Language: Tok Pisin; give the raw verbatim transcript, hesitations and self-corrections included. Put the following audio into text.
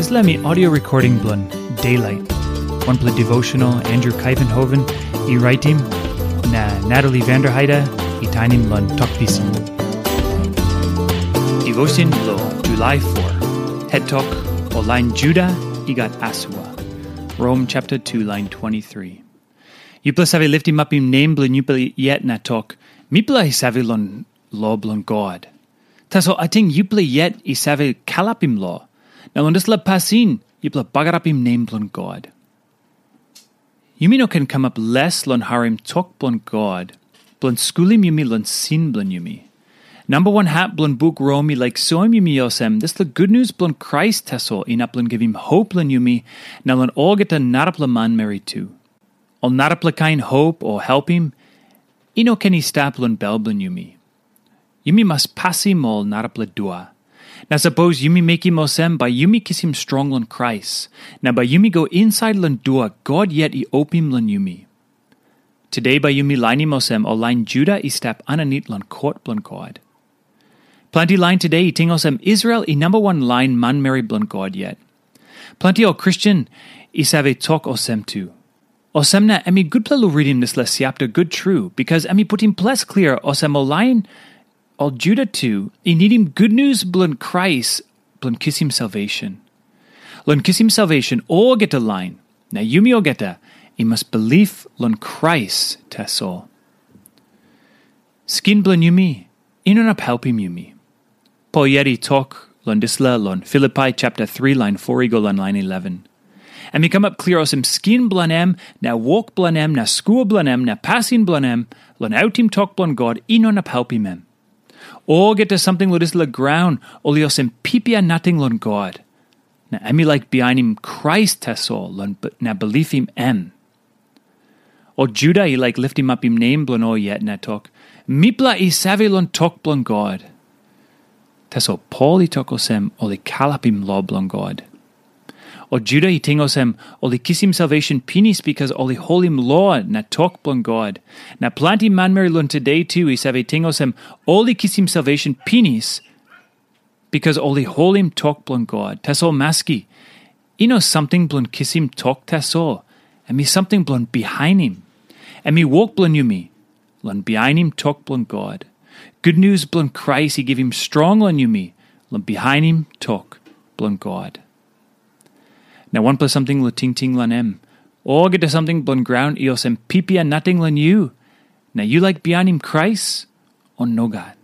Dispela mi audio recording bilong Daylight, wanpela devotional Andrew Kaivenhoven i raitim, na Natalie Vanderheide i tainim long Tok Pisin. Devotion bilong July four. Het tok, o lain Juda i gat asua. Rom chapter two, lain twenty-three. Yupela save liftim apim nem bilong yupela yet na tok, mipela i save long lo bilong God. Tasol ating yupela yet i save kalapim lo, na long dispela pasin yupela bagarapim nem bilong God. Yumi no ken kamap les long harim tok bilong God, bilong skulim yumi long sin bilong yumi. Namba wan hap bilong buk Rom i laik soim yumi olsem, dispela gutnius bilong Krais tasol inap long givim hop long yumi na long olgeta narapela manmeri tu. Ol narapela kain hop o helpim i no ken i stap long bel bilong yumi. Yumi mas pasim ol narapela dua. Na sapos yumi mekim olsem, bai yumi kisim strong long Krais, na bai yumi go insait long dua God yet i opim long yumi. Today bai yumi lainim olsem ol lain Juda i stap aninit long kot bilong God. Planti lain today i ting olsem Israel i namba wan lain manmeri bilong God yet. Planti ol Kristen i save tok olsem tu. Olsem na em i gutpela long ritim dispela siapta gut tru, bikas em i putim ples klia olsem ol lain ol Juda tu i nidim gutnius bilong Krais bilong kisim salvation. Long kisim salvation olgeta lain, na yumi olgeta i mas bilip long Krais tasol. Skin bilong yumi i no inap helpim yumi. Pol yet i tok long dispela long Filipai chapter three lain four i go long lain eleven. Em i kamap klia olsem skin bilong em, na wok bilong em, na skul bilong em, na pasin bilong em, long autim tok bilong God i no inap helpim em. Olgeta samting long dispela graun ol i olsem pipia nating long God. Na em i laik bihainim Krais tasol long b- na bilipim em. Ol Juda i laik liftim apim nem bilong ol yet na tok, mipela i save long tok bilong God. Tasol Pol i tok olsem ol i kalapim lo bilong God. Ol Juda i ting olsem ol i kisim salvation pinis bikas ol i holim lo na tok bilong God. Na planti manmeri long today tu i save ting olsem ol i kisim salvation pinis bikas ol i holim tok bilong God. Tasol maski, i no samting bilong kisim tok tasol. Em i samting bilong bihainim. Em i wok bilong yumi long bihainim tok bilong God. Gutnius bilong Krais i givim strong long yumi long bihainim tok bilong God. Na wanpela samting long tingting long em. Olgeta samting bilong graun i olsem pipia nating long yu, na yu laik bihainim Krais, o nogat?